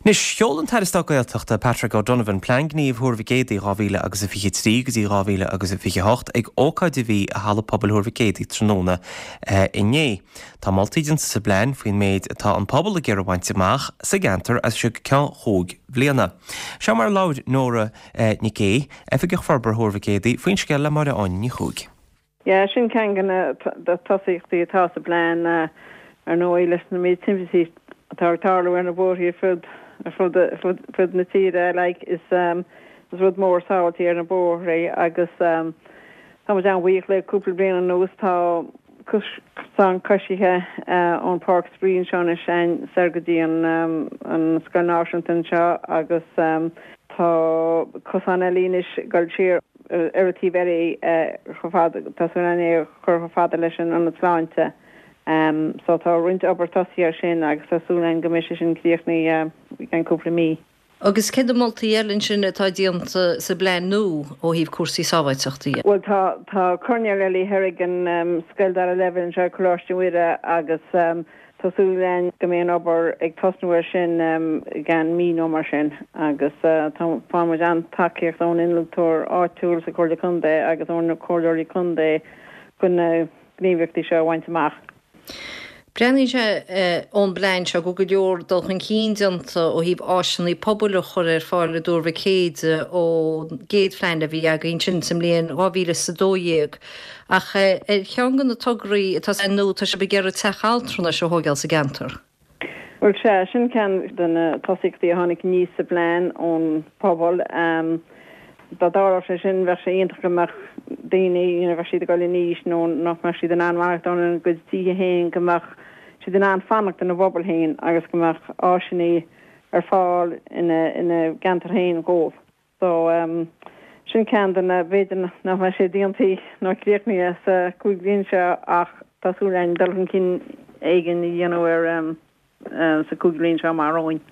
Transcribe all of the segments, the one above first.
Anois, sheol an tAire Stáit Gaeltachta, Patrick O'Donovan, Plean Gnímh Thuar Mhic Éadaigh 2023 go dtí 2028 ag ócáid a bhí i Halla Pobail Thuar Mhic Éadaigh tráthnóna inné. Tá moltaí déanta sa bplean faoin méid atá an pobal ag iarraidh a bhaint amach sa gceantar as seo go ceann chúig bhliana. Seo mar a labhair Nóra Nic Aoidh, Oifigeach Forbartha Thuar Mhic Éadaigh, faoin scéal le Máire Áine Ní Chuaig. Yeah, sin ceann de na tosaíochtaí atá sa bplean, ar ndóigh, leis na méid timpistí atá ag tarlú ar na bóithre ar fud ar fud ar fud na tíre, like, is is rud mór sábháilteacht ar na bóithre agus tá muid an-bhuíoch le cúpla bliain anuas tá cosán coisithe ón Páirc Spraoi anseo anois soir go dtí an an Scoil Náisiúnta anseo agus tá cosán eile anois ag dul siar ar an taobh eile chomh fada, tá súil againn é a chur chomh fada leis an Ionad Sláinte. So tá roinnt obair tosaithe ar sin agus tá súil againn go mbeidh sé sin críochnaithe i gceann cúpla mí. Agus cé na moltaí eile ansin atá déanta sa bplean nua ó thaobh cúrsaí sábháilteachta dhe? Bhuel tá, tá coirnéal eile thoir ag an scoil dara leibhéal anseo, Coláiste Mhuire, agus Tá súil againn go mbeidh an obair ag tosnú air sin i gceann mí nó mar sin agus tá faigheann muid an-tacaíocht ón innealtóir áitiúil sa Chomhairle Contae agus ó na Comhairleoirí Contae chun na gníomhaíochtaí seo a bhaint amach. Breathnaíonn sé ón bplean seo go bhfuil go leor dul chun cinn déanta ó thaobh áiseanna pobail a chur ar fáil i dTuar Mhic Éadaigh ón gcéad phlean a bhí againn sin sa mbliain 2012. Ach ar cheann de na tograí atá sa phlean nua, tá sibh ag iarraidh teach altranais a thóigeáil sa gceantar. Bhuel, sea, sin ceann de na tosaíochtaí a tháinig aníos sa bplean ón phobal. Dá dtarlódh sé sin, bheadh sé iontach go mbeadh daoine, you know, bheadh siad ag dul in aois nó nach mbeadh siad in ann maireachtáil ina gcuid tithe féin, go mbeadh siad in ann fanacht ina bpobal féin agus go mbeadh áiseanna ar fáil ina gceantar féin dhóibh. So, sin ceann de na, b'fhéidir nach mbeidh sé déanta nó críochnaithe sa chúig bhliain seo ach tá súil againn dul chun cinn éigin a dhéanamh air sa chúig bhliain seo amach romhainn.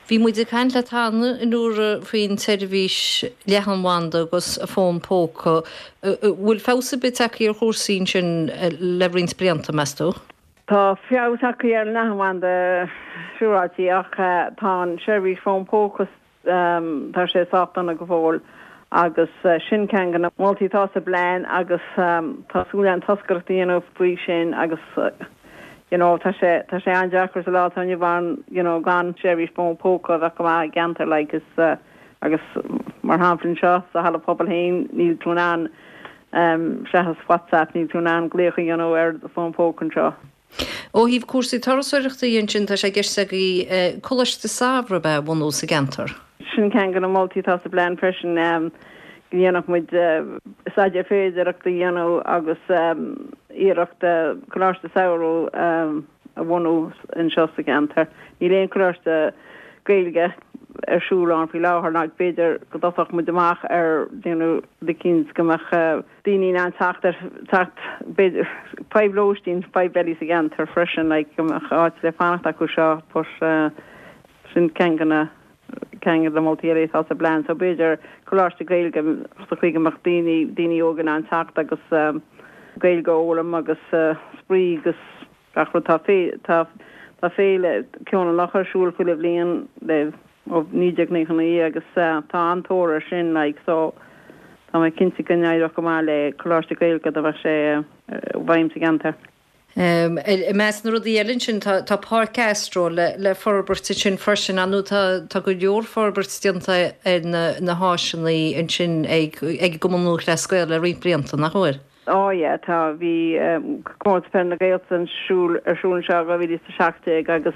Bhí muid ag caint leat cheana a Nóra faoin tseirbhís leathanbhanda agus fón póca. Bhfuil feabhas ar bith tagtha ar chúrsaí ansin le roinnt blianta, meas tú? Tá feabhas tagtha ar an leathanbhanda siúráilte ach tá an seirbhís fón póca Tá sé sách dona go fóill agus sin ceann de na moltaí atá sa bplean agus tá súil againn toscaireacht a dhéanamh faoi sin agus you know tá sé tá sé an-deacair sa lá atá inniu ann you know gan seirbhís fón póca a bheith go maith i gceantar like is agus mar shampla anseo sa halla pobail féin níl tú in ann seachas WhatsApp níl tú in ann glaoch a dhéanamh ar do fón póca anseo. Ó thaobh cúrsaí turasóireachta dhe ansin, tá sé i gceist agaibh Coláiste Samhraidh a bhunú sa gceantar. Sin ceann de na moltaí atá sa bplean freisin, go ndéanfadh muid staidéar féidearthachta a dhéanamh agus iarracht Coláiste Samhraidh a bhunú anseo sa gceantar. Níl aon choláiste Gaeilge ar siúl ann faoi láthair ná b'fhéidir go dtosódh muid amach ar déanamh rud eicínt go mbeadh daoine in ann teacht ar, teacht, b'fhéidir, fadhb lóistín, fadhb eile sa gceantar freisin, like, go mbeadh áit le fanacht acu seo, but sin ceann de na, ceann de na moltaí eile atá sa bplean, so b'fhéidir coláiste Gaeilge sa chaoi go mbeadh daoine, daoine óga in ann teacht agus Gaeilge a fhoghlaim agus spraoi agus gach rud. Tá tá, tá féile Ceol na Locha ar siúl chuile bhliain le ó 1999 agus tá an-tóir air sin like so tá mé cinnte go n-éireodh go maith le Coláiste Gaeilge dá mbeadh sé i bhfeidhm sa gceantar. I measc na rudaí eile ansin tá tá Páirc Astro le le forbairt ansin freisin ar ndóigh tá tá go leor forbairt déanta ar na na háiseanna ansin ag ag an gCumann Lúthchleas Gael le roinnt blianta, nach bhfuil? Á yeah, tá. Bhí Comórtas Peile na Gaeltachta ar siúl ar siúl anseo i 2017 agus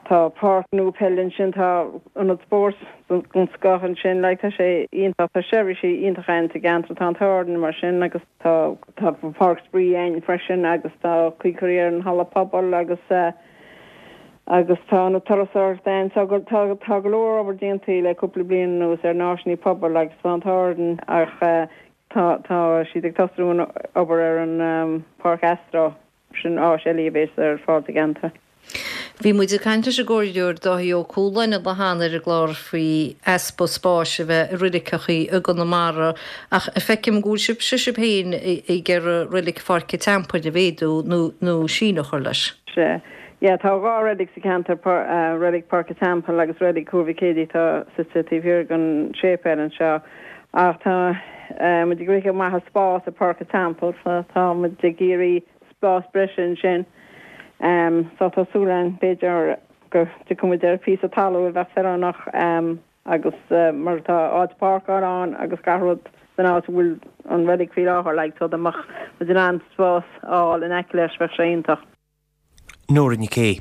tá páirc nua peile ansin, tá ionad spóirt den scoth ansin, like tá sé iontach, tá seirbhísí iontacha ann sa gceantar, tá an t-ádh orainn mar sin agus tá tá páirc spraoi ann freisin agus tá caoi curtha ar an halla pobail agus agus tá ionad turasóireachta ann so go tá tá go leor obair déanta le cúpla bliain anuas ar na háiseanna pobail agus tá an t-ádh orainn ach Tá, tá siad ag tosnú an obair ar an Páirc Astro, sin áis eile a bhéas ar fáil sa gceantar. Bhí muid ag caint leis an gComhairleoir Dáithí Ó Cualáin an lá cheana ar an gclár faoi easpa spáis a bheith i roiliceachaí i gConamara ach feicim go bhfuil sibhse sibh féin ag iarraidh roilig Pháirc an Teampaill a mhéadú nó nó síneadh a chur leis. Sea. Yeah, tá 2 reilig sa cheantar, Reilig Páirc an Teampaill agus Reilig Thuar Mhic Éadaigh atá suite taobh thiar den séipéal anseo. Ach tá muid ag rith amach as spás i Páirc an Teampaill so tá muid ag iarraidh spás breise ansin. So tá súil againn b'fhéidir go dtiocfaidh muid ar phíosa talún a bheadh feiliúnach agus mar tá áit páirceála ann agus gach rud san áit a bhfuil an reilig faoi láthair like so dá mbeadh muid in ann spás a fháil in aice leis bheadh sé iontach. Nóra Nic Aoidh.